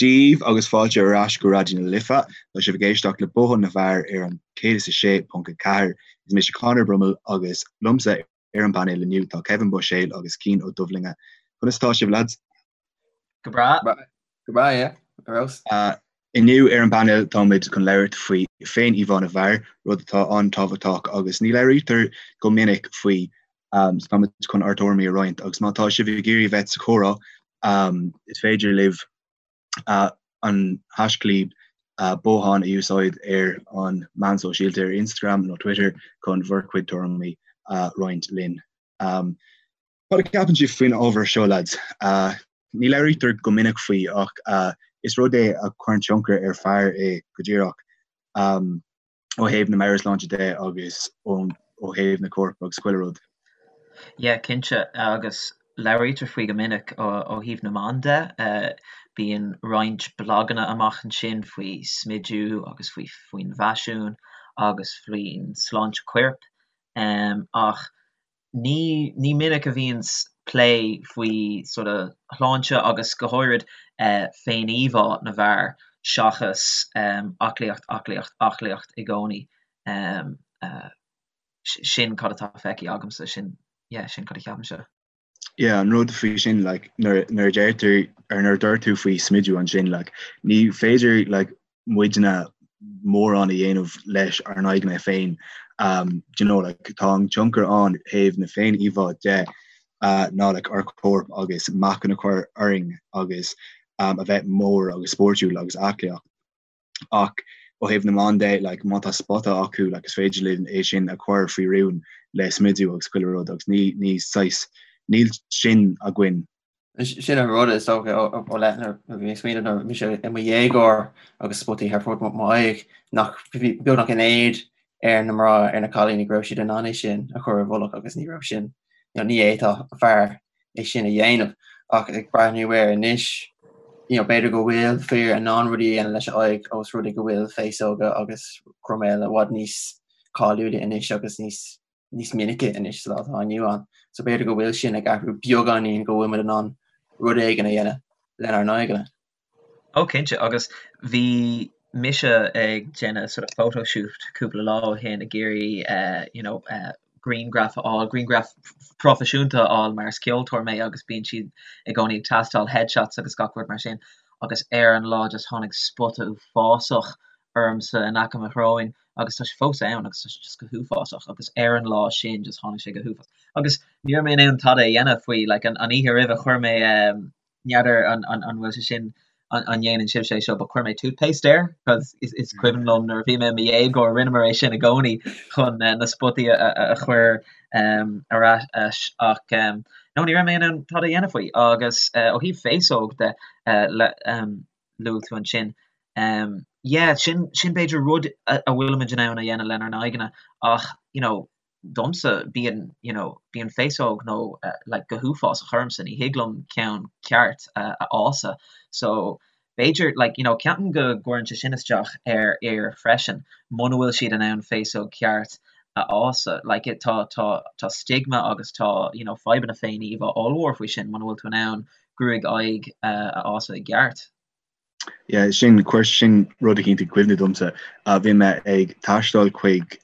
Dia daoibh agus fáilte ar ais go Raidió na Life. Tá sibh ag éisteacht le Bothán na bhFear ar an 106.4. Is mise Conor Brummel agus liomsa ar an bpainéal inniu tá Kevin Buiséal agus Cian Ó Dubhlinge. Conas atá sibh lads? Go breá. Go breá, yeah. Ar fheabhas. Inniu ar an bpainéal táimid chun labhairt faoi féin-íomhá na bhfear, rud atá an-tábhachtach agus ní labhraítear go minic faoi. So táimid chun ár dtuairimí a roinnt agus má tá sibh ag iarraidh a bheith sa chomhrá is féidir libh an haischlib bothán a úsáid ar an meán sóisialta ar Instagram nó Twitter chun bhur gcuid tuairimí a roinnt linn. Cad a cheapann sibh faoin ábhar seo lads? Ní labhraítear go minic faoi ach is rud é a chuireann tionchar ar fear é go díreach. ó thaobh na meabhairshláinte de agus ó thaobh na coirp agus chuile rud. Yeah, cinnte, agus labhraítear faoi go minic ó thaobh na mban de. Bíonn roinnt blaganna amach ansin faoi smidiú agus faoi faoin bhfaisiún agus faoin sláinte coirp. Ach Ní ní minic a bhíonns plé faoi sort of shláinte agus go háirid féin-íomhá na bhfear seachas aclaíocht, aclaíocht, aclaíocht i gcónaí. Sin cad atá feicthe agamsa, sin, yeah, sin cad a cheapaimse. Yeah, an rud faoi sin, like, nuair nuair a deirtear, or nuair a dúirt tú faoi smidiú ansin, like, ní féidir, like, muidne mórán a dhéanamh leis ár n-aghaidheanna féin. Do you know, like, tá an tionchar ann thaobh na féin-íomhá de ná like, ár corp agus meáchan a chur orainn agus a bheith mór agus spórtúil agus aclaíocht. Ach ó thaobh na mban de, like, má tá spota acu, like, is féidir linn é sin a chur faoi rún le smidiú agus chuile rud agus ní, ní saghas, níl sin againn Sin an rud is dócha ó leith nuair a bhí mé ag smaoineamh nuair a bhí mise i mo dhéagóir agus spotaí thar fud m'aghaidh nach beagnach in éad ar na mná ar na cailíní go raibh siad in ann é sin a chur i bhfolach agus ní raibh sin you know, ní fhéadfadh fear é sin a dhéanamh ach ag breathnú air anois you know, b'fhéidir go bhfuil fir in ann rudaí a dhéanamh leis a aghaidh ós rud é go bhfuil féasóga agus croiméil i bhfad níos cáiliúla anois agus níos níos minice anois sa lá atá inniu ann. So b'fhéidir go bhfuil sin ag athrú beagáinín go bhfuil muid in ann rud éigin a dhéanamh lenár n-aghaidheanna. Ó cinnte, agus bhí mise ag déanamh sort of photo shoot cúpla lá ó shin ag iarraidh eh, you know, eh, grianghraf a fháil, grianghraf proifisiúnta a fháil mar is ceoltóir mé agus bíonn siad i gcónaí ag teastáil headshots agus gach rud mar sin agus ar an lá just tháinig spota uafásach ormsa in aice mo shróin agus tá sé fós ann agus tá sé just go huafásach agus ar an lá sin just tháinig sé go huafásach agus ní raibh mé in ann tada a dhéanamh faoi like an an oíche roimhe chuir mé um, n'fheadar an an an bhfuil sé sin an an ndéanann sibhse é seo but chuir mé toothpaste air cos is is cuimhin liom nuair a bhí mé i mo dhéagóir rinneamar é sin i gcónaí chun uh, na spotaí a, a, a chur um, ar ais ach um, no ní raibh mé in ann tada a dhéanamh faoi agus uh, ó thaobh féasóg de uh, le, um, luaigh tú ansin. Yeah, sin, sin b'fhéidir rud a bhfuilimid in ann a dhéanamh lenár n-aghaidheanna ach, you know, domsa bíonn, you know, bíonn féasóg nó like go huafásach ormsa, ní thig liom ceann ceart a fhásadh. So b'fhéidir, like, you know, ceapaim go gcuireann sé sin isteach ar fhir freisin, muna bhfuil siad in ann féasóg ceart a fhásadh. Like, tá, tá, tá stigma agus tá, you know, fadhbanna féin-íomhá ollmhór faoi sin muna bhfuil tú in ann gruaig aghaidh a fhásadh i gceart. Yeah, sin, chuir sin rud eicínt i gcuimhne domsa. Bhí mé ag taisteal chuig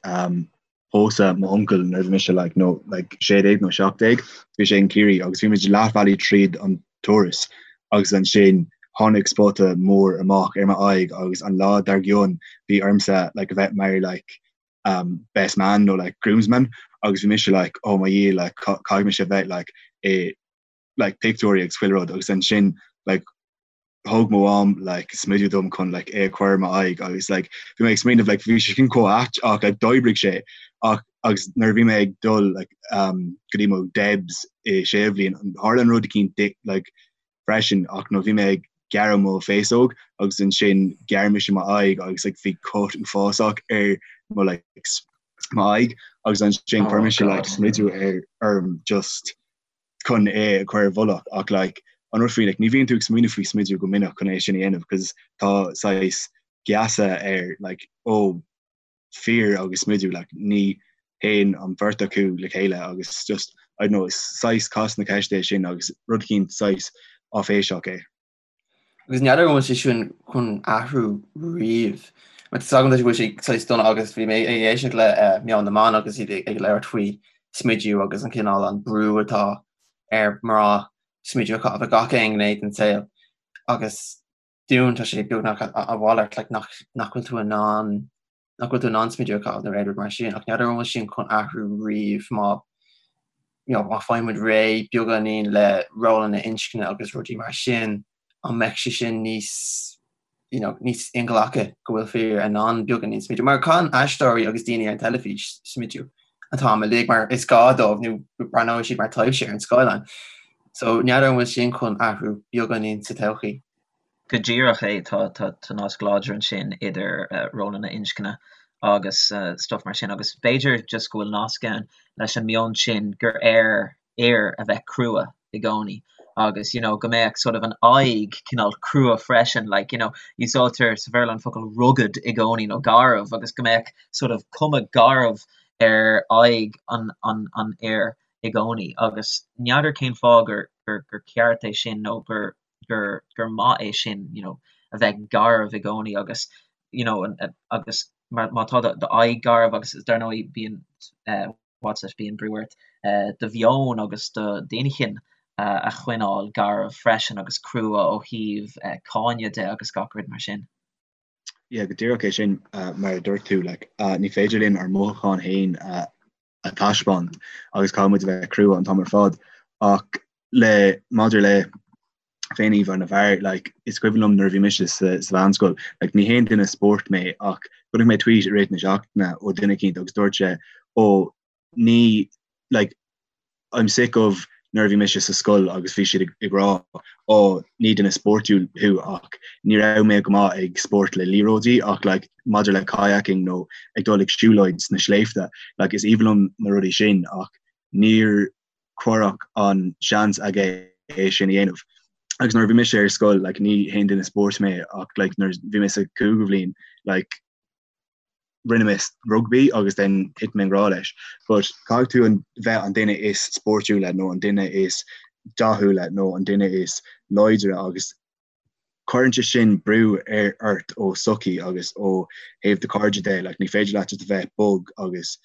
pósadh m'uncail nuair a bhí mise like, no, like 16 nó 17, bhí sé in Ciarraí agus bhí muid leathbhealaigh tríd an turas agus ansin tháinig spota mór amach ar m'aghaidh agus an lá dár gcionn bhí ormsa like, a bheith mar like, um, best man nó like, groomsman agus bhí mise like, oh my Dhia, like, caithfidh mise a bheith like, i like pictiúirí agus chuile rud agus ansin like thug mo mham like smideadh dom chun like é a chur ar m'aghaidh agus like bhí mé ag smaoineamh like bhí sé sin chomh ait ach like d'oibrigh sé ach agus nuair a bhí mé ag dul like um go dtí mo debs i séú bhliain tharla an rud eicínt like freisin ach nó bhí mé ag gearradh mo féasóg agus ansin ghearr mise m'aghaidh agus like bhí cut uafásach ar mo like m'aghaidh agus ansin chuir mise like smideadh ar orm just chun é a chur i bhfolach ach like an rud faoi like ní bhíonn tú ag smaoineamh faoi smideadh go minic chun é sin a dhéanamh cos tá saghas geasa ar like ó fir agus smideadh like ní théann an bheirt acu le chéile agus just I don't know is saghas cás na ceiste é sin agus rud eicínt saghas áiféiseach é. Agus n'fheadar an bhfuil sé sin chun athrú riamh. Mar tá agam go bhfuil sé saghas dona agus bhí mé ag éisteacht le Meon na mBan agus iad ag labhairt faoi smidiú agus an cineál an brú atá ar mná smidiú a chaitheamh i gach aon ghné den saol agus dúinn tá sé beagnach a mhalairt like nach nach bhfuil tú in ann nach bhfuil tú in ann smidiú a chaitheamh nó aon rud mar sin ach n'fheadar an bhfuil sin chun athrú riamh má you know, má fhaigheann muid réidh beagáinín le rólanna inscne agus rudaí mar sin an mbeidh sé sin níos you know, níos inghlactha go bhfuil fir in ann beagáinín smidiú mar caitheann aisteoirí agus daoine ar an teilifís smidiú an t-am uilig mar is gá dóibh nó breathnóidh siad mar taibhse ar an scáileán. So n'fheadar an bhfuil sin chun athrú beagáinín sa todhchaí. Go díreach é, tá tá nasc láidir ansin idir rólanna inscne agus stuff mar sin agus b'fhéidir just go bhfuil nasc ann leis an meon sin gur ar fhir a bheith crua i gcónaí agus you know go mbeadh sort of an aghaidh cineál crua freisin like you know úsáidtear sa Bhéarla an focal rugged i gcónaí nó garbh agus go mbeadh sort of cuma garbh ar aghaidh an an an fhir i gcónaí agus n'fheadar cén fáth gur gur gur ceart é sin nó gur gur gur maith é sin you know a bheith garbh i gcónaí agus you know an agus mar má tá do do aghaidh garbh agus dar ndóigh bíonn eh what's it bíonn brú ort do mheon agus do d'inchinn a choinneáil garbh freisin agus crua ó thaobh cáineadh de agus gach rud mar sin. Yeah, go díreach é sin mar a dúirt tú, like, ní féidir linn ár mothúcháin féin a taispeáint agus caithfidh muid a bheith crua an t-am ar fad ach le maidir le féin-íomhá na bhfear, like, is cuimhin liom nuair a bhí mise sa, sa mheánscoil, like, ní haon duine spóirt mé ach chonaic mé tweet i rith na seachtaine ó duine eicínt agus dúirt sé, ó, ní, like, I'm sick of nuair a bhí mise sa scoil agus bhí siad ag, ag rá, ó, ní duine spórtúil thú ach ní raibh mé go maith ag spórt le liathróidí ach, like, maidir le kayaking nó ag dul ag siúlóid sna sléibhte, like, is aoibhinn liom na rudaí sin ach níor cuireadh an seans aige é sin a dhéanamh. Agus nuair a bhí mise ar scoil, like, ní haon duine spóirt mé ach like, nuair a bhí mé sa cúigiú bhliain, like, rinne mé rugbaí agus then thit mé i ngrá leis. But caithfidh tú an bheith an duine is spórtúla nó an duine is dathúla nó an duine is láidre agus cuireann sé sin brú ar ort ó sochaí agus ó thaobh do cairde de, like, ní féidir leat just a bheith bog agus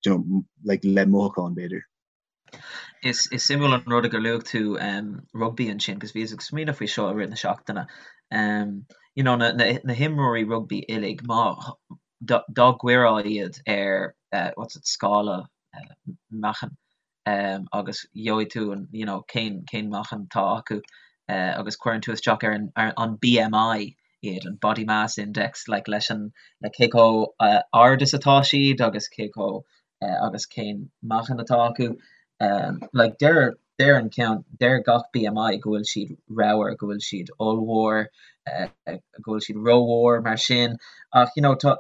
you know, like, le mothúcháin b'fhéidir. Is is suimiúil an rud gur luaigh tú um, rugbaí ansin, 'cause bhíos ag smaoineamh faoi seo i rith na seachtaine. Um, you know, na, na, na himreoirí rugbaí uilig, má dá, dá gcuirfeá iad ar uh, what's it, scála uh, meáchain, um, agus gheobhaidh tú an, you know, cén, cén meáchan atá acu uh, agus cuireann tú isteach ar an, ar an BMI iad, an Body Mass Index, like, leis an, le cé chomh uh, ard is atá siad agus cé chomh uh, agus cén meáchan atá acu. Um, like, deir, deir an ceann, deir gach BMI go bhfuil siad ramhar, go bhfuil siad ollmhór, uh, go bhfuil siad rómhór mar sin, ach you know, tá,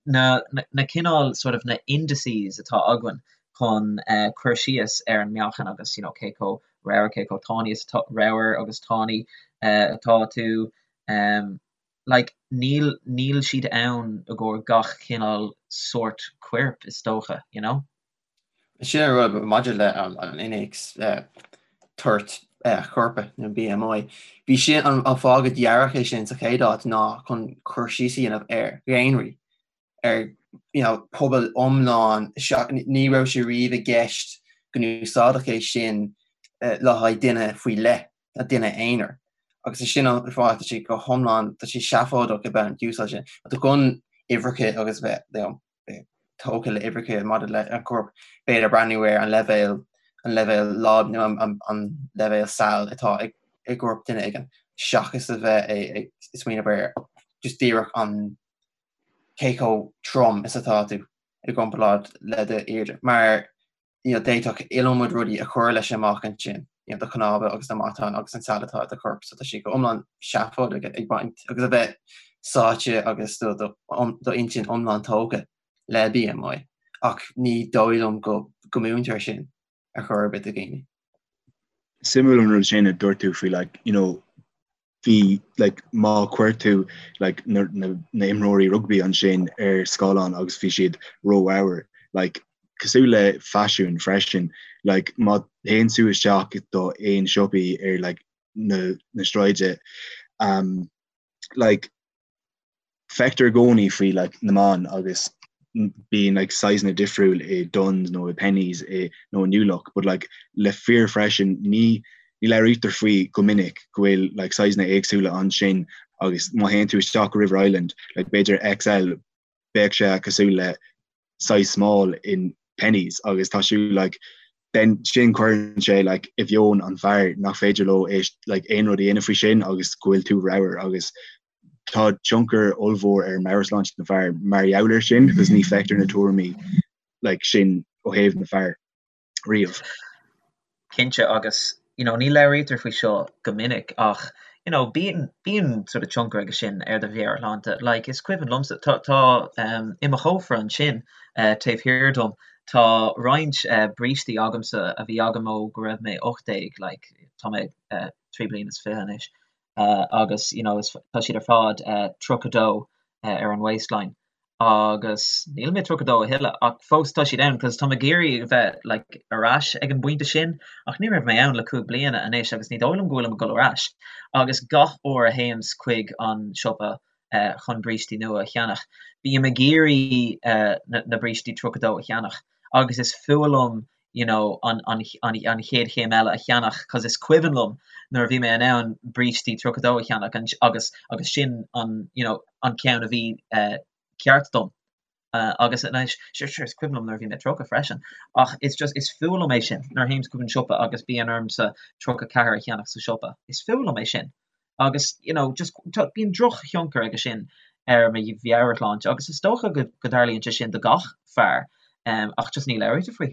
na na cineál sort of na indices atá againn chun cur síos ar an meáchan agus you know cé chomh ramhar, cé chomh tanaí is atá, ramhar agus tanaí atá tú um like níl níl siad ann i gcomhair gach cineál sórt coirp is dócha, you know? Sin an rud maidir le an innéacs toirt choirp nó BMI. Bhí sin an fáth go dearadh é sin sa chéad áit ná chun cur síos a dhéanamh ar dhaonraí, ar you know pobal iomlán, ní raibh sé riamh i gceist go n-úsáidfeadh é sin le haghaidh duine faoi leith, ná duine aonair. Agus is sin an fáth tá sé go hiomlán, tá sé seafóideach a bheith ag úsáid sin. Tá chun uimhreacha agus bheith you know, tógtha le uimhreacha maidir le an corp, b'fhéidir breathnú ar an leibhéal, an leibhéal láib nó an leibhéal saill atá i gcorp duine éigin, seachas a bheith ag smaoineamh ar just díreach an cé chomh trom is atá tú i gcomparáid le d'airde. Mar you know, d'fhéadfadh iliomad rudaí a chur leis amach ansin, you know, do chnámha agus do mhatáin agus an sal atá i do chorp, so tá sé go iomlán seafóideach ag baint agus a bheith sáite agus do do do intinn iomlán tógtha le BMI, ach ní dóigh liom go go múintear sin ar chor ar bith do dhaoine. Suimiúil an rud sin a dúirt tú faoi like, you know, bhí like má chuir tú like na na na imreoirí rugbaí ansin ar scáileán agus bhí siad rómhór like cosúil le faisiún freisin like má théann tú isteach do aon siopaí ar like na na sráide. Um, like, feictear i gcónaí faoi like, na mban agus bíonn like, sizeanna difriúil i Dunnes nó i Penneys i nó i New Look, but like, le fir freisin ní ní labhraítear faoi go minic go bhfuil like, sizeanna éagsúla ansin agus má théann tú isteach go River Island, like, b'fhéidir XL bheadh sé cosúil le size small in Penneys agus tá sé like then sin cuireann sé like i mheon an fear nach féidir leo é like aon rud a dhéanamh faoi sin agus go bhfuil tú ramhar agus tá tionchar ollmhór ar meabhairshláinte na bhfear mar gheall air sin because ní feictear na tuairimí like sin ó thaobh na fear. riamh. Cinnte, agus you know ní labhraítear faoi seo go minic ach you know bíonn bíonn sort of tionchar aige sin ar do mheabhairshláinte. Like is cuimhin liomsa tá tá um i mo chófra ansin eh taobh thiar dom tá roinnt eh brístí agamsa a bhí agam ó go raibh mé 18 like tá mé eh 3 bliana is 20 anois eh agus you know is tá siad ar fad eh 32 eh ar an waistline agus níl mé 32 a thuilleadh ach fós tá siad ann cos tá mé ag iarraidh a bheith like ar ais ag an bpointe sin ach ní raibh mé ann le 5 bliana anois agus ní dóigh liom go bhfuilim ag dul ar ais agus gach uair a théims chuig an siopa eh chun brístí nua a cheannach bím ag iarraidh eh na na brístí 32 a cheannach agus is fuath liom you know an an an an chéad chéim eile a cheannach cos is cuimhin liom nuair a bhí mé in ann brístí 32 a cheannach and agus agus sin an you know an ceann a bhí eh ceart dom uh, agus anois sure sure is cuimhin liom nuair a bhí mé 30 freisin ach it's just is fuath liom é sin nuair a théims chuig an siopa agus bíonn ormsa 34 a cheannach sa siopa is fuath liom é sin agus you know just tá bíonn drochthionchar aige sin ar mo mheabhairshláinte agus is dócha go go dtarlaíonn sé sin do gach fear um, ach just ní labhraítear faoi.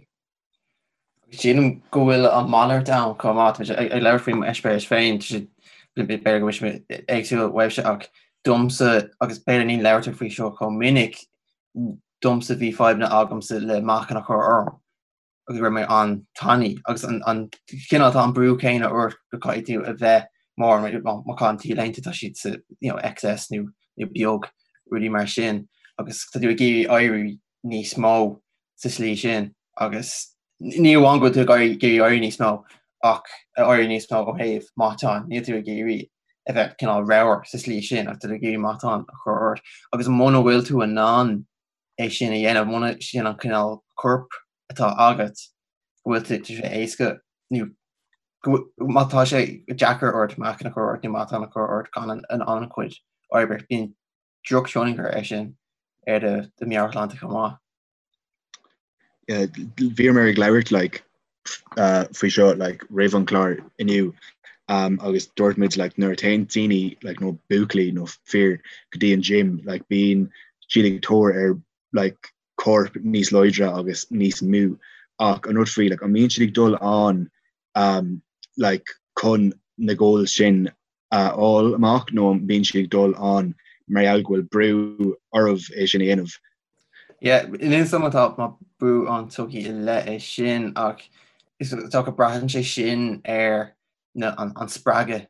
Sílim go bhfuil an malairt ann chomh maith, tá mé ag labhairt faoi m'eispéireas féin, tá sé b'fhéidir go bhfuil sé éagsúil uaibhse ach domsa agus b'fhéidir ní labhraítear faoi seo chomh minic, domsa bhí fadhbanna agamsa le meáchan a chur orm. agus go raibh mé an-tanaí agus an cineál tá an brú céanna ort go caithfidh tú a bheith mór má chaitheann t-léinte tá siad sa you know, XS nó nó beag rudaí mar sin agus tá tú ag iarraidh éirí níos mó sa slí sin agus ní amháin go bhfuil tú ag iarraidh éirí níos mó ach éirí níos mó ó thaobh meáchan níl tú ag iarraidh a bheith cineál ramhar sa slí sin ach tá tú ag iarraidh meáchan a chur ort agus muna bhfuil tú in ann é sin a dhéanamh, muna sin an cineál coirp atá agat, go bhfuil tá sé éasca nó má tá sé deacair ort meáchan a chur ort nó matán a chur ort gan an an-chuid oibre, bíonn drochthionchar air sin ar do do meabhairshláinte chomh maith. Bhíomar ag labhairt like uh, faoi seo like roimh an chlár inniu um, agus dúirt muid like nuair a théann daoine like nó buachaillí nó fir go dtí an gym like bíonn siad ag tóir ar like corp níos láidre agus níos mó ach an rud faoi like an mbíonn siad ag dul ann um, like chun na goals sin a fháil amach nó an mbíonn siad ag dul ann mar gheall go bhfuil brú orthu é sin a dhéanamh? Yeah, níl 'fhios a'm tá brú an tsochaí i leith é sin ach is dócha braitheann sé sin ar na an, an spreagadh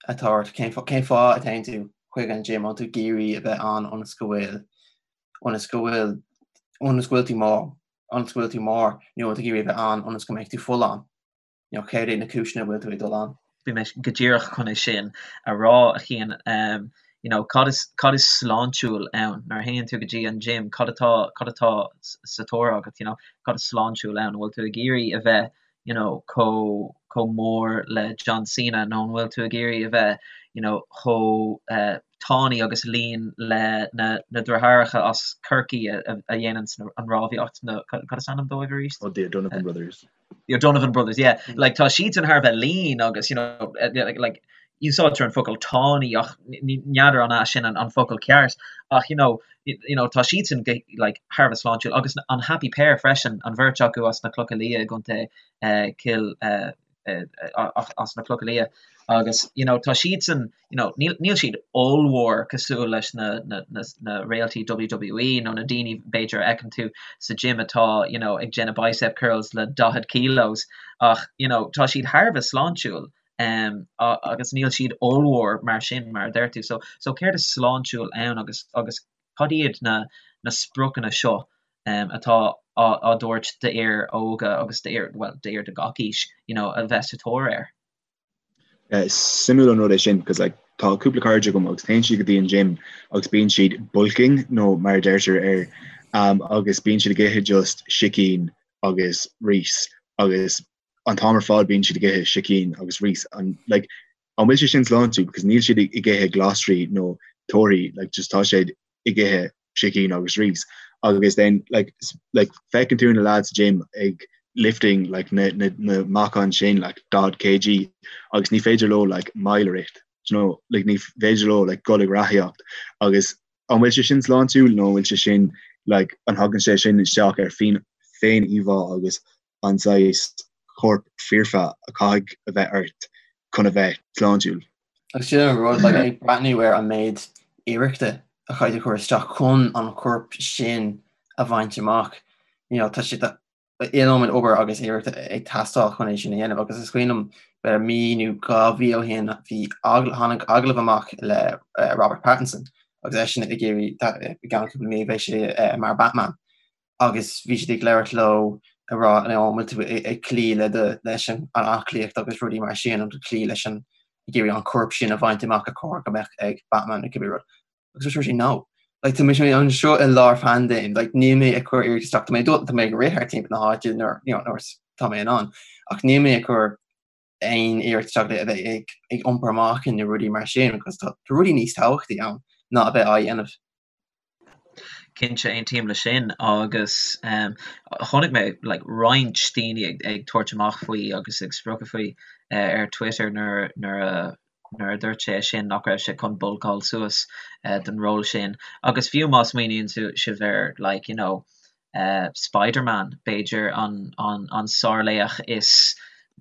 atá ort cén cén fáth a théann tú chuig an gym an tú ag iarraidh a bheith ann ionas go bhfuil ionas go bhfuil ionas go bhfuil tú mór ionas go bhfuil tú mór nó tú ag iarraidh a bheith ann ionas go mbeidh tú folláin. You know, céard iad na cúiseanna a bhfuil tú ag dul ann? Bhí mé go díreach chun é sin a rá, a Chian. Um, you know, cad is, cad is sláintiúil ann? Nuair a théann tú go dtí an gym, cad atá, cad atá sa tóir agat, you know? Cad is sláintiúil ann? An bhfuil tú ag iarraidh a bheith, you know, chomh, chomh mór le John Cena nó an bhfuil tú ag iarraidh a bheith, you know, chomh uh, tanaí agus lean le na, na deartháireacha as Corcaigh a, a, a dhéanann an rámhaíocht, na, cad is ainm dóibh arís? Oh, the O'Donovan Brothers. The O'Donovan Brothers, yeah. Like tá siadsan thar a bheith lean agus you know eh, like, like úsáidtear an focal tanaí ach n'fheadar an é sin an, an focal ceart ach you know, you know tá siadsan like thar a bheith sláintiúil agus an Happy Pair freisin an bheirt acu as na Clocha Liath i gContae uh, Cill uh, as na Clocha Liath agus you know tá siadsan you know níl níl siad ollmhór cosúil leis na na na na réaltaí WWE nó na daoine b'fhéidir a fheiceann tú sa gym atá you know ag déanamh bicep curls le 40 kilos ach you know tá siad thar a bheith sláintiúil um, agus níl siad ollmhór mar sin mar a deir tú so so céard is sláintiúil ann agus agus cad iad na na spriocanna seo um, atá á á dtabhairt d'fhir óga agus d'fhir well d'fhir de gach aois you know a bheith sa tóir air. Is suimiúil an rud é sin, cos like. tá cúpla cairde agam agus téann siad go dtí an gym agus bíonn siad bulking nó mar a deirtear air um, agus bíonn siad ag ithe just sicín agus rís agus an t-am ar fad bíonn siad ag ithe sicín agus rís an like an bhfuil sé sin sláintiúil because níl siad ag ithe glasraí nó torthaí like just tá siad ag ithe sicín agus rís agus then like like feiceann tú na lads sa gym ag lifting like na na na meáchain sin like 40 kg agus ní féidir leo like mile a rith you know like ní féidir leo like dul ag reathaíocht agus an bhfuil sé sin sláintiúil nó an bhfuil sé sin like an thagann sé sin isteach ar féin féin íomhá agus an saghas corp foirfe a chaithfidh a bheith ort chun a bheith sláintiúil. Agus sin an rud, like, ag breathnú ar an méid iarrachta a chaithfidh tú cur isteach chun an corp sin a bhaint amach, you know, tá sé iliomad obair agus iarrachta ag teastáil chun é sin a dhéanamh agus is cuimhin liom b'fhéidir mí nó 2 mhí ó shin bhí tháinig agallamh amach le Robert Pattinson agus eisean ag iarraidh i gceann cúpla mí beidh sé mar Batman agus bhí siad ag labhairt leo ag rá an bhfuil tú ag cloí le do leis an aclaíocht agus rudaí mar sin an cloí leis an ag iarraidh an corp sin a bhaint amach ar chóir go mbeadh ag Batman nó cibé rud. Agus dúirt sé no. Like tá mé anseo i lár phaindéim, like níl mé ag cur iarracht isteach, tá mé tá mé ag rith thart timpeall na háite nuair you know nuair tá mé in ann ach níl mé ag cur aon iarracht isteach le a bheith ag ag iompar meáchain nó rudaí mar sin because tá rudaí níos tábhachtaí ann ná a bheith á dhéanamh. Cinnte, aontaím leis sin agus chonaic mé like roinnt daoine ag ag tabhairt amach faoi agus ag spochadh faoi ar Twitter nuair nuair a nuair a dúirt sé sin nach raibh sé chun bulcáil suas don ról sin. Agus fiú má smaoiníonn sibh ar like you know Spider-Man, b'fhéidir an an sárlaoch is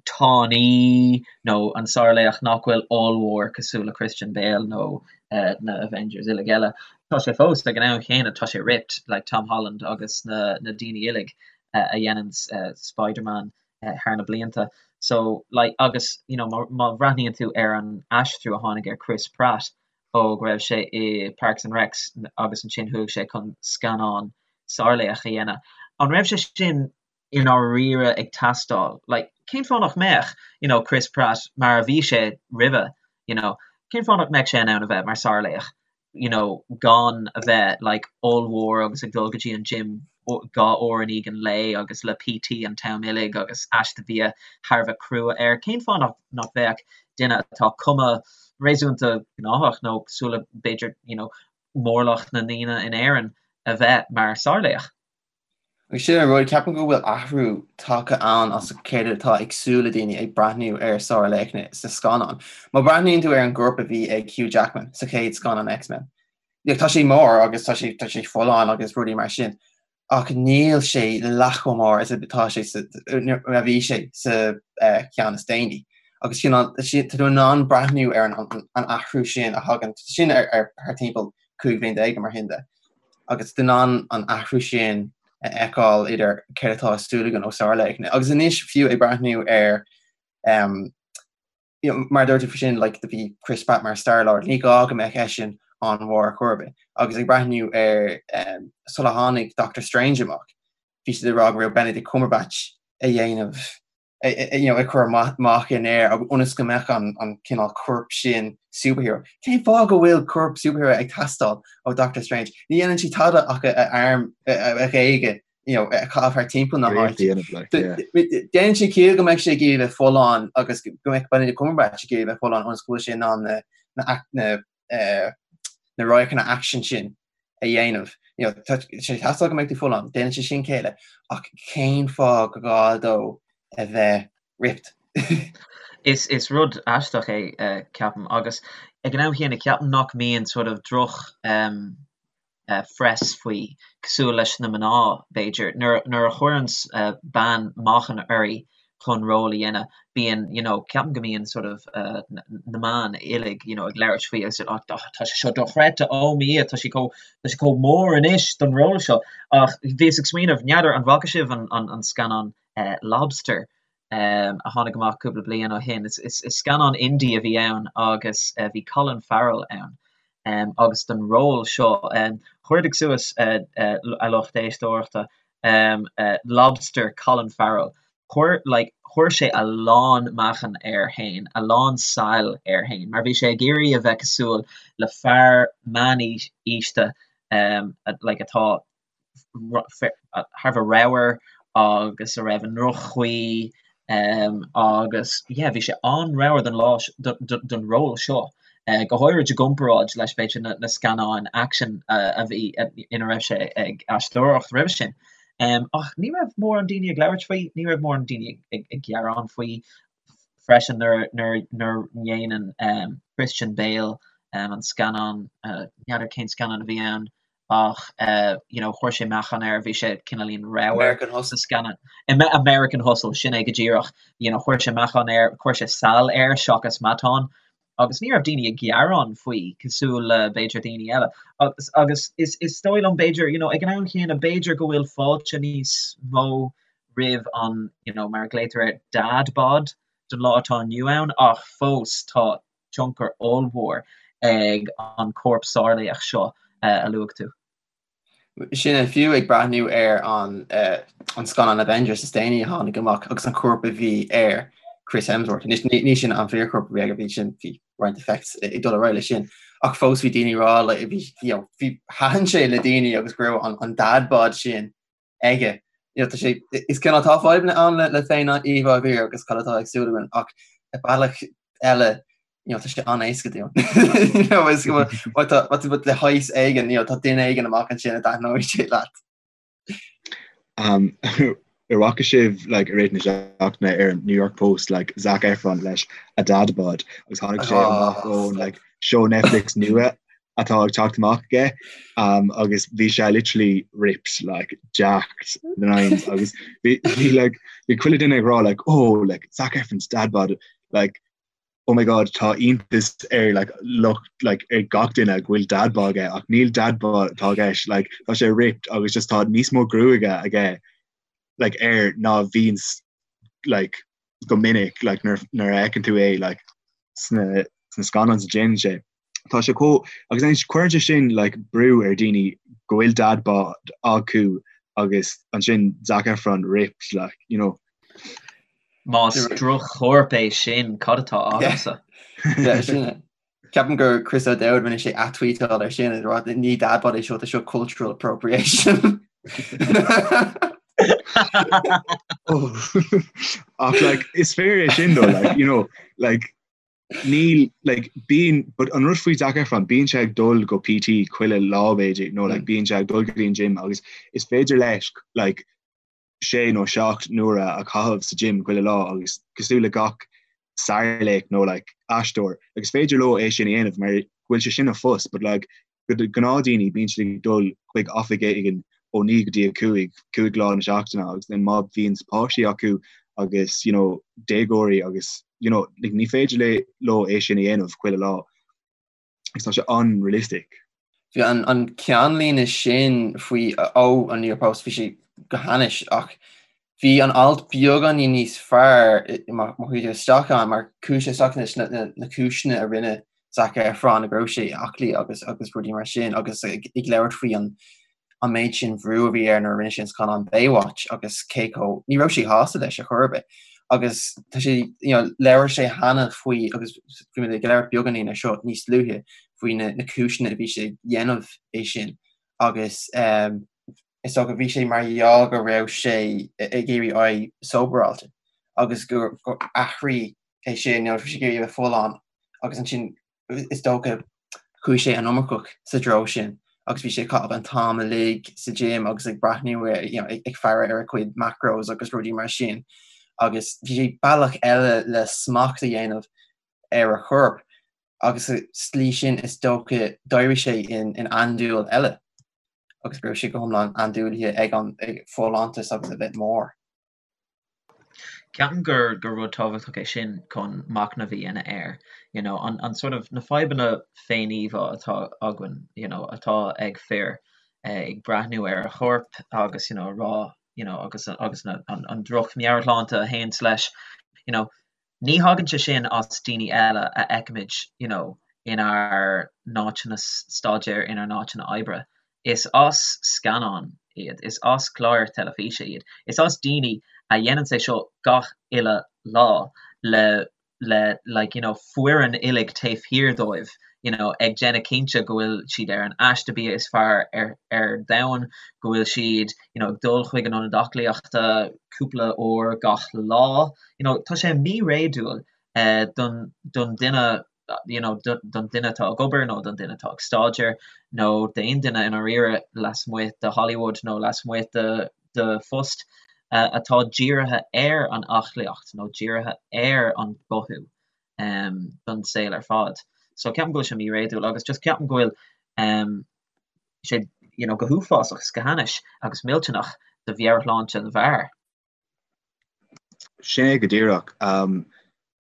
tanaí nó an sárlaoch nach bhfuil ollmhór cosúil le Christian Bale nó na Avengers uilig eile. Tá sé fós ag an am chéanna, tá sé ripped, like Tom Holland agus na na daoine uilig a dhéanann Spider-Man thar na blianta. So like agus you know má má bhreathnaíonn tú ar an aistriú a tháinig ar Chris Pratt ó go raibh sé i Parks and Recs agus ansin chuaigh sé chun scannán sárlaoch a dhéanamh. An raibh sé sin i ndáiríre ag teastáil? Like, cén fáth nach mbeadh, you know, Chris Pratt mar a bhí sé roimhe, you know, cén fáth nach mbeadh sé in ann a bheith mar sárlaoch, you know, gan a bheith like ollmhór agus ag dul go dtí an gym 2 uair in aghaidh an lae agus le PT an t-am uilig agus aiste bia thar a bheith crua air. Cén fáth nach nach mbeadh duine atá cuma réasúnta gnáthach nó cosúil le b'fhéidir you know mórlach na ndaoine in Éirinn a bheith mar sárlaoch? Agus sin an rud, ceapaim go bhfuil athrú tagtha ann as céard atá ag súil le daoine ag breathnú ar sárlaochna sna scannáin. Má breathnaíonn tú ar an gcorp a bhí ag Hugh Jackman sa chéad scannán X-Men, tá sé mór agus tá sé tá sé folláin agus rudaí mar sin ach níl sé leath chomh mór is atá sé sa a bhí sé sa cheann is déanaí. Agus sin tá tú in ann breathnú ar an athrú sin a thagann sin ar thar timpeall 15 bhliain mar sin de. Agus tú in ann an athrú sin a fheiceáil idir céard atá ag súil againn ó sárlaochna. Agus anois fiú ag breathnú ar you know, mar a dúirt tú faoi sin, like, do bhí Chris Pratt mar Star-Lord, ní gá go mbeadh eisean an-mhór ar chor ar bith. Agus ag breathnú ar um, sula tháinig Doctor Strange amach, bhí siad ag rá go raibh Benedict Cumberbatch a dhéanamh you know, ag cur meáchain air ionas go mbeadh an, an cineál corp sin superhero. Cén fáth go bhfuil corp superhero ag teastáil ó Doctor Strange? Ní dhéanann sé tada ach a arm a ghéaga you know, a chaitheamh thar timpeall na háite. Déanann sé ciall go mbeidh sé ag iarraidh bheith folláin agus go mbeidh Benedict Cumberbatch ag iarraidh bheith folláin ionas go bhfuil sé in ann na na na radharcanna aicsin sin a dhéanamh. You know, tá sé ag teastáil go mbeidh tú folláin, déanann sé sin ciall, ach cén fáth go gá dó a bheith ripped? Is is rud aisteach é, ceapaim, agus ag an am chéanna ceapaim nach mbíonn sort of droch um, phress faoi, cosúil leis na mná, b'fhéidir. Nuair a chuireann bean meáchan uirthi chun ról a dhéanamh, bíonn, you know, ceapaim go mbíonn sort of na meáin uilig, you know, ag labhairt faoi agus oh tá sé seo dochreidte, oh mo Dhia, tá sí chomh, tá sí chomh mór anois don ról seo. Ach bhíos ag smaoineamh, n'fheadar an bhfaca sibh an, an, an scannán Lobster a tháinig amach cúpla bliain ó shin. Is scannán indie a bhí ann agus bhí Colin Farrell ann. Agus don ról seo, cuardaigh suas a lucht éisteoireachta, Lobster Colin Farrell. Chuir, like, chuir sé a lán meáchan air fhéin, a lán saill air fhéin, mar bhí sé ag iarraidh a bheith cosúil le fear meánaosta, um, like, atá thar a bheith ramhar agus a raibh i ndroch-chaoi, um, agus, yeah, bhí sé an-ramhar don lá, don ról seo, go háirid i gcomparáid leis, b'fhéidir, na scannáin aicsin a bhí, ina raibh sé ag aisteoireacht roimhe sin. Ach ní raibh mórán daoine ag labhairt faoi, ní raibh mórán daoine ag gearán faoi freisin nuair nuair dhéanann Christian Bale an scannán, n'fheadar cén scannán a bhí ann ach you know chuir sé meáchan air, bhí sé cineáilín ramhar sa scannán. American Hustle, sin é go díreach. You know chuir sé meáchan air, chuir sé sal air seachas matán. agus ní raibh daoine ag gearán faoi cosúil le b'fhéidir daoine eile agus agus is is dóigh liom b'fhéidir you know ag an am chéanna b'fhéidir go bhfuil fáilte níos mó roimh an you know mar a ghlaotar air dad bod don lá atá inniu ann ach fós tá tionchar ollmhór ag an corp sárlaoch seo a luaigh tú. Sin é, fiú ag breathnú ar an an scannán Avengers is déanaí a tháinig amach agus an corp a bhí ar Chris Hemsworth. Anois ní sin an fíorchorp a bhí aige, bhí sin bhí roinnt effects ag dul ar aghaidh leis sin. Ach fós bhí daoine ag rá like bhí you know bhí thaitin sé le daoine agus go raibh an an dad bod sin aige. You know, tá sé is cineál tá fadhbanna ann le le féin-íomhá fhir agus cad atá ag súil againn ach ar bealach eile you know, tá sé an-éasca dúinn. You know, is go bhfuil tá tá tú le shaghas éigin, you know, tá duine éigin amach ansin a dtaitneoidh sé leat. Um, ar bhfaca sibh like, i rith na seachtaine ar New York Post like, Zac Efron leis a dad bod agus tháinig sé amach oh, ón like, show Netflix nua atá ag teacht amach aige um, agus bhí sé literally ripped like jacked the nines agus bhí bhí like bhí chuile duine ag rá like oh like Zac Efron's dad bod like oh my god tá iontas ar like lucht like ar gach duine go bhfuil dad bod aige ach níl dad bod atá i gceist like tá sé ripped agus just tá níos mó gruaige aige like air ná bhíonns like go minic like nuair nuair a fheiceann tú é like sna sna scannáin a déanann sé. Tá sé chomh agus anois cuireann sé sin like brú ar daoine go bhfuil dad bod acu agus ansin Zac Efron ripped like you know. Más droch-chorp é sin, cad atá agamsa? Yeah, sin é. Ceapaim gur Chris O'Dowd rinne sé atweetáil ar sin ag rá ní dad bod é seo, tá seo cultural appropriation. Ach like is fíor é sin though like you know like níl like bíonn but an rud faoi Zac Efron bíonn sé ag dul go PT chuile lá b'fhéidir nó like bíonn sé ag dul go dtí an gym agus is féidir leis like sé nó seacht n-uaire a chaitheamh sa gym chuile lá agus cosúil le gach sárlaoch nó like aisteoir like is féidir leo é sin a dhéanamh mar go bhfuil sé sin a phost but like do gnáthdhaoine bíonn siad ag dul chuig oifig éigin ó 9 go dtí 5, 5 lá na seachtaine agus then má bhíonn páistí acu agus you know déagóirí agus you know like ní féidir le leo é sin a dhéanamh chuile lá. agus tá sé an-realistic. Bhí an an ceannlíne sin faoi ó an New York Post, bhí sé go hainnis ach bhí an alt beagáinín níos fearr má chuaigh tú isteach ann mar chuaigh sé isteach leis na na cúiseanna a rinne Zac Efron go raibh sé aclaí agus agus rudaí mar sin agus ag labhairt faoi an an méid sin bhrú a bhí air nuair a rinne sé an scannán Baywatch agus cé chomh, ní raibh sé shásta leis ar chor ar bith. Agus tá sé, you know, labhair sé cheana faoi, agus bhí mé ag labhairt beagáinín ar seo níos luaithe, faoi na, na cúiseanna a bhí sé ag dhéanamh é sin agus um, is dócha bhí sé mar gheall go raibh sé ag iarraidh éirí sóbaráilte agus gur, gur athraigh é sin, you know, bhí sé ag iarraidh a bheith folláin agus ansin is dócha, chuaigh sé an iomarcach sa treo sin agus bhí sé ag caitheamh an t-am uilig sa gym agus ag breathnú ar, you know, ag faire ar a chuid macros agus rudaí mar sin agus bhí sé bealach eile le smacht a dhéanamh ar a chorp agus sa tslí sin is dócha d'éirigh sé in, in andúil eile agus go raibh sé go hiomlán andúilithe ag an ag folláintas agus a bheith mór. Ceapaim gur gur rud tábhachtach é sin chun machnamh a dhéanamh air, you know, an an sort of na fadhbanna féin-íomhá atá againn, you know, atá ag fir ag breathnú ar a chorp agus, you know, a rá, you know, agus agus na an an droch-mheabhairshláinte a théanns leis, you know, Ní thagann sé sin as daoine eile a fheicimid you know inár n-áiteanna staidéir, inár n-áiteanna oibre. Is as scannáin iad, is as cláir teilifíse iad, is as daoine a dhéananns é seo gach uile lá le le like you know foireann uilig taobh thiar dóibh you know ag déanamh cinnte go bhfuil siad ar an aiste bia is fearr ar ar domhan, go bhfuil siad you know ag dul chuig an ionad aclaíochta cúpla uair gach lá. You know tá sé míréadúil eh don don duine you know don duine atá ag obair nó don duine atá ag staidéar nó d'aon duine i ndáiríre lasmuigh de Hollywood nó lasmuigh de de phost atá dírithe ar an aclaíocht nó dírithe ar an gcothú don saol ar fad. So ceapaim go bhfuil sé míréadúil agus just ceapaim go bhfuil sé you know go huafásach is go hainnis agus millteanach do mheabhairshláinte na bhfear. Sin é go díreach.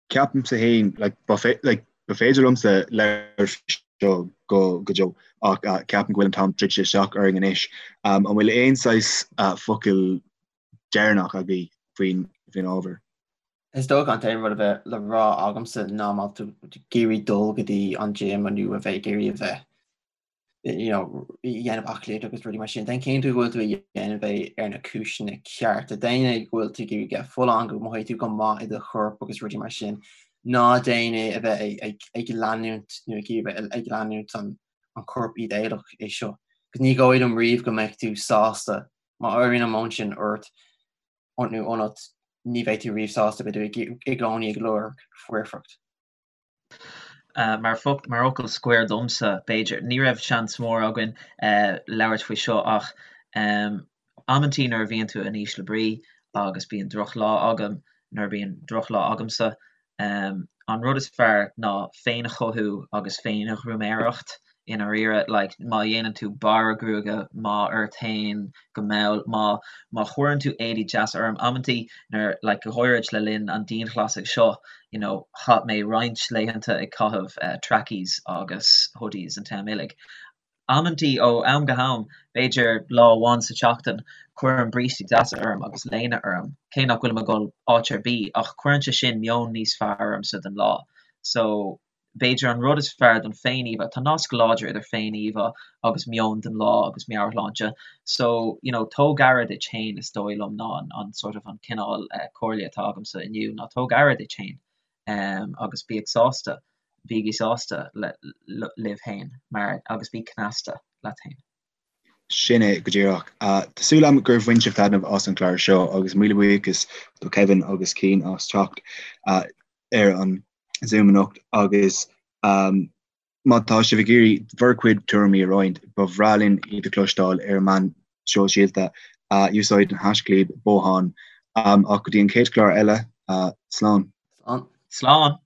Ceapaimse féin, like, ba like, ba féidir liomsa labhairt faoi seo go go deo ach uh, ceapaim go bhfuil an t-am druidte isteach orainn anois. Um, an bhfuil aon saghas uh, focal deireanach agaibh faoin faoin ábhar? Is dócha an t-aon rud a bheith le rá agamsa ná má tá tú ag iarraidh dul go dtí an gym nó a bheith ag iarraidh a bheith you know, dhéanamh aclaíocht agus rudaí mar sin. Déan cinnte go bhfuil tú ag déanamh é ar na cúiseanna cearta. Déan é go bhfuil tú ag iarraidh bheith folláin, go mothaíonn tú go maith i do chorp agus rudaí mar sin. Ná déan é a bheith ag leanúint nó ag iarraidh ag leanúint an an corp ídéalach é seo. Agus ní dóigh liom riamh go mbeidh tú sásta má éiríonn an meon sin ort nó ionat ní bheidh tú riamh sásta, beidh tú i gcónaí ag lorg foirfeacht. Mar fhocal scoir domsa, b'fhéidir, ní raibh seans mór againn labhairt faoi seo ach amantaí nuair a bhíonn tú in ísle brí agus bíonn drochlá agam, nuair a bíonn drochlá agamsa, an rud is fearr ná féinchothú agus féinghruaméireacht. i ndáiríre, like, má dhéanann tú bearradh gruaige maith ort fhéin go mall, má, má chuireann tú éadaí deasa orm, amantaí nuair, like, go háirid le linn an dianghlasáil seo, you know, chaith mé roinnt laethanta ag caitheamh eh trackies agus hoodies an t-am uilig. Amantaí ó am go ham, b'fhéidir lá amháin sa tseachtain, cuirim brístí deasa orm agus léine orm, cé nach bhfuilim ag dul áit ar bith, ach cuireann sé sin meon níos fearr ormsa don lá. So, B'fhéidir an rud is fearr don féin-íomhá, tá nasc láidir idir féin-íomhá agus meon don lá agus meabhairshláinte. So, you know, tóg aire duit féin is dóigh liom ná an, an sort of an cineál comhairle atá agamsa inniu ná tóg aire duit féin agus bíodh sásta, bígí sásta le, libh féin mar, agus bí cneasta leat féin. Sin é go díreach. Tá súil agam gur bhain sibh taitneamh as an chlár seo agus míle buíochas do Kevin agus Cian as teacht ar an Zoom anocht agus má tá sibh ag iarraidh bhur gcuid tuairimí a roinnt, ba bhreá linn iad a chloisteáil ar an meán sóisialta. Úsáid an haischlib Bothán. Ach go dtí an chéad chlár eile, slán. Slán. Slán.